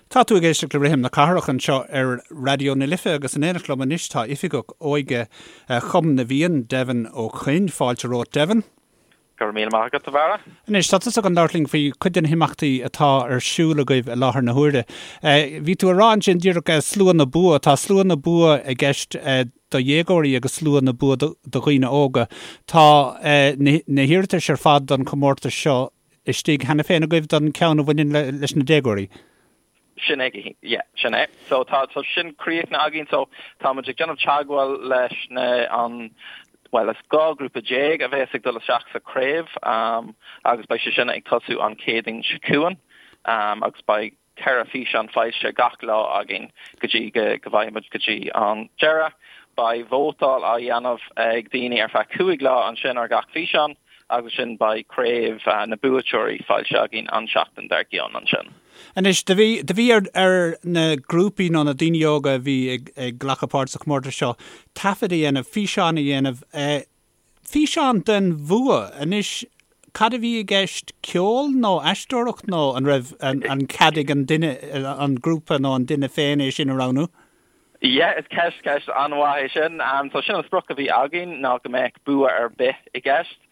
Tá tú ag éisteacht le Rithim na Cathrach anseo ar Raidió na Life agus in éineacht liom anois tá Oifigeach Óige Chumann na bhFiann, Devin Ó Coinn. Fáilte romhat, Devin. Go raibh míle maith agat, a Bharra. Anois, tá tusa chun labhairt linn faoi chuid de na himeachtaí atá ar siúl agaibh i láthair na huaire. Bhí tú ag rá ansin díreach Slua na Bua, tá Slua na Bua i gceist do dhéagóirí agus Slua na Bua do dhaoine óga. Tá na hiarratais ar fad don chomórtas seo istigh cheana féin agaibh don cheann a bhaineann leis na déagóirí? Sin é, yeah, sin é. So tá tá sin críochnaithe againn so tá muid ag déanamh teagmháil leis na an bhuel is 12 grúpa a bheas ag dul isteach sa craobh um, agus beidh sé sin ag tosú an Chéadaoin seo chugainn um, agus beidh 4 físeán foilsithe gach lá againn go dtí go bhfaighidh muid go dtí an deireadh. Beidh vótáil á dhéanamh ag daoine ar feadh 5 lá ansin ar gach físeán agus ansin beidh craobh na buaiteoirí foilsithe againn an seachtain dár gcionn ansin. Anois, do bhí, do bhí ar, ar na grúpaí nó na daoine óga a bhí ag, ag glacadh páirt sa chomórtas seo taifead a dhéanamh, físeán a dhéanamh, Físeán den bhua. Anois, cad a bhí i gceist, ceol nó aisteoireacht nó an raibh an cead ag an duine, an grúpa nó an duine féin é sin a roghnú? Yeah, is ceist, ceist an-mhaith é sin. So sin an sprioc a bhí againn ná go mbeadh bua ar bith i gceist.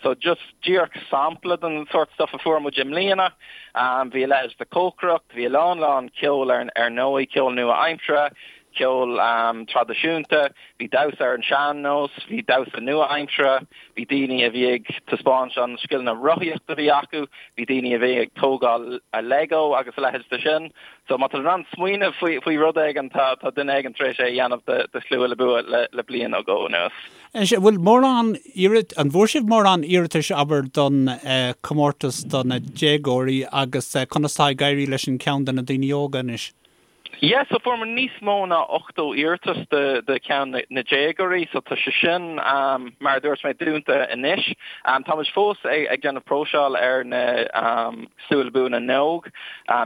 So just díreach sampla den sórt stuff a fuair muid i mbliana. Bhí a leithéid de cócaireacht, bhí a lán lán ceol ar ar ndóigh, ceol nua-aimseartha, ceol traidisiúnta, bhí damhsa ar an sean-nós, bhí damhsa nua-aimseartha, bhí daoine a bhí ag taispeáint an scileanna rothaíochta a bhí acu, bhí daoine a bhí ag tógáil Lego agus a leithéid de sin. So má tá tú in ann smaoineamh faoi faoi rud éigin, tá tá duine éigin tar éis é a dhéanamh do do Shlua le Bua le le bliain nó dhó anuas. Anois, an bhfuil mórán iarrat, an bhfuair sibh mórán iarratais, abair, don chomórtas do na déagóirí agus conas atá ag éirí leis an ceann do na daoine óga anois? Yeah, so fuair muid níos mó ná 80 iarratas do do cheann na déagóirí, so tá sé sin, mar a dúirt mé, dúnta anois. Tá muid fós ag ag déanamh próiseáil ar na Slua le Bua na nÓg.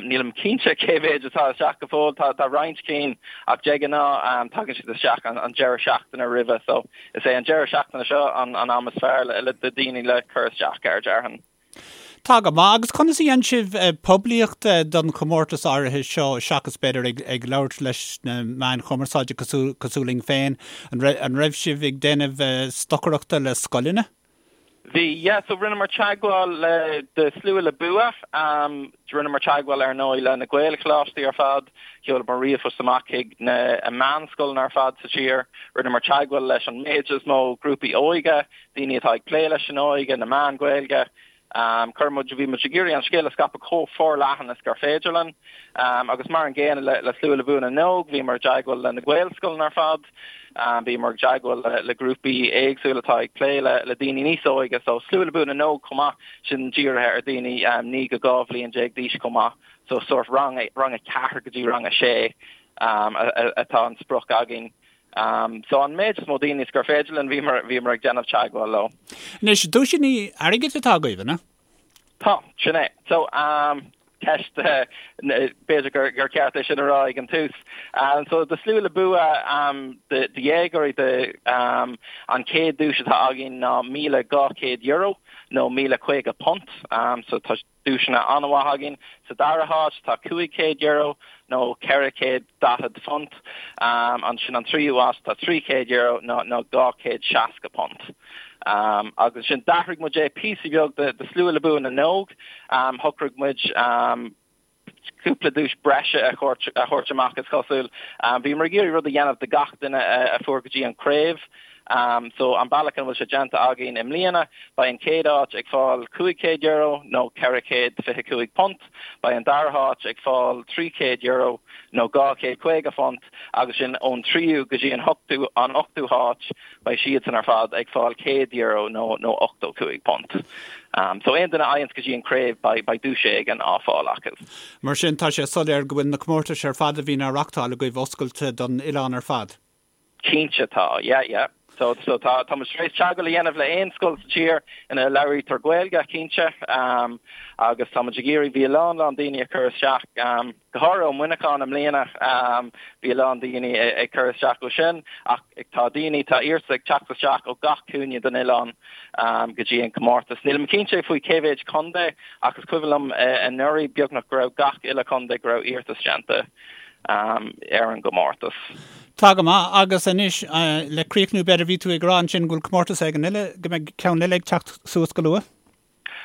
Nílim cinnte cé mhéid atá isteach go fóill, tá tá roinnt cinn ach de ghnáth tagann siad isteach an an deireadh seachtaine roimhe, so is é an deireadh seachtaine seo an an am is fearr le le do daoine le cur isteach air, déarfainn. Tá go maith. Agus conas a dhein sibh poiblíocht don chomórtas áirithe seo seachas b'fhéidir ag ag labhairt leis na meáin chumarsáide cosúil cosúil linn féin? An raibh an raibh sibh ag déanamh stocaireachta le scoileanna? Bhí, yeah. So rinneamar teagmháil le do Slua le Bua. Rinneamar teagmháil ar ndóigh le na Gaelcholáistí ar fad. Sheolamar ríomhphost amach chuig na meánscoileanna ar fad sa tír. Rinneamar teagmháil leis an méid is mó grúpaí óige. daoine atá ag plé leis an óige, na meáin Ghaeilge. Chuir muid, bhí muid ag iarraidh an scéal a scaipeadh chomh forleathan is gur féidir linn. Agus mar an gcéanna le, le Slua le Bua na nÓg, bhíomar i dteagmháil le na Gaelscoileanna ar fad, bhíomar i dteagmháil le, le grúpaí éagsúla atá ag plé le, le daoine níos óige. So Slua le Bua na nÓg chomh maith, sin dírithe ar daoine 9 go 12 bhliain d'aois chomh maith. So sórt rang, rang 4 go dtí rang 6 atá an sprioc againn. So an méid is mó daoine is gur féidir linn, bhíomar, bhíomar ag déanamh teagmháil leo. Anois, duaiseanna airgid atá agaibh, an ea? Tá, sin é. So, ceist, b'fhéidir gur, gur ceart é sin a rá ag an tús. So, do Slua le Bua, do, do dhéagóirí, do, an chéad duais atá againn ná €1,200 nó £1,050. So, tá duaiseanna an-mhaith againn. Sa dara háit tá €500 nó £440. Ansin an tríú háit tá €300 nó nó £260. Agus ansin d'athraigh muid é píosa beag do Slua le Bua na nÓg. Shocraigh muid cúpla duais breise a thabhairt amach is cosúil. Bhíomar ag iarraidh rud a dhéanamh do gach duine a fuair go dtí an craobh. So an bealach ina bhfuil sé déanta againn i mbliana, beidh an chéad áit ag fáil €500 nó £425, beidh an dara háit ag fáil €300 nó £250 agus sin ón tríú go dtí an hochtú an ochtú háit, beidh siadsan ar fad ag fáil €100 nó nó £85. So aon duine a fhaigheanns go dtí an craobh beidh beidh duais éigin á fáil acu. Mar sin tá sé soiléir go bhfuil na comórtais ar fad a bhíonn á reachtáil agaibh oscailte don oileán ar fad. Cinnte tá, yeah, yeah. So so tá tá muid tar éis teagmháil a dhéanamh le aon scoil sa tír ina labhraítear Gaeilge, cinnte, agus tá muid ag iarraidh, bhí a lán lán daoine ag cur isteach, go háirithe ó Mhuineachán i mbliana, bhí a lán daoine ag cur isteach ó sin, ach tá daoine, tá iarratais ag teacht isteach ó gach cúinne den oileán go dtí an comórtas. Nílim cinnte faoi cé mhéid contae ach is cuimhin liom anuraidh beagnach go raibh gach uile chontae go raibh iarratas déanta ar an gcomórtas. Tá go maith, agus anois le críochnú b'fhéidir, bhí tú ag rá ansin go bhfuil comórtas éigin eile, go mbeidh ceann eile ag teacht suas go luath?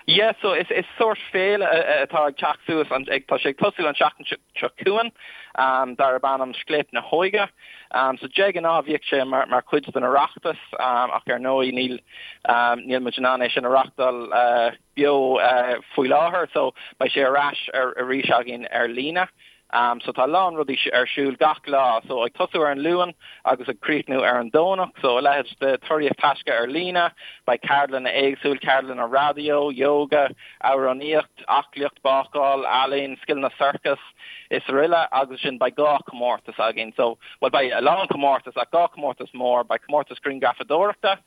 Yeah, so is is sórt féile atá ag teacht suas, an, ag, tá sé ag tosú an tseachtain seo chugainn, um, darb ainm Scléip na hÓige. Um, so de ghnáth bhíodh sé mar, mar chuid den Oireachtas, um, ach ar ndóigh níl, um, níl muid in ann é sin a reachtáil uh, beo uh, faoi láthair, so beidh sé ar ais ar, arís againn ar líne. So tá a lán rudaí ar siúl gach lá, so ag tosú ar an Luan agus ag críochnú ar an Domhnach, so a leithéid de Tóraíocht Taisce ar líne, beidh ceardlanna éagsúil, ceardlanna raidió, yoga, amhránaíocht, aclaíocht, bácáil, ealaín, scileanna sorcas is aroile agus ansin beidh 2 comórtas againn, so, bhuel beidh a lán comórtas ach 2 comórtas mór, beidh comórtas grianghrafadóireachta,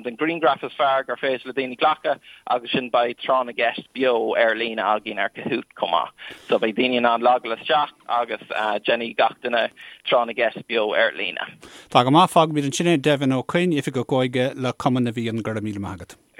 den ghrianghraf is fearr gur féidir le daoine glacadh agus ansin beidh tráth na gceist beo ar líne againn ar Kahoot chomh maith. So beidh daoine in ann logáil isteach agus déanfaidh gach duine tráth na gceist beo ar líne. Tá go maith, fágfaimid ansin é. Devin Ó Coinn, Oifigeach Óige le Cumann na bhFiann, go raibh míle maith agat.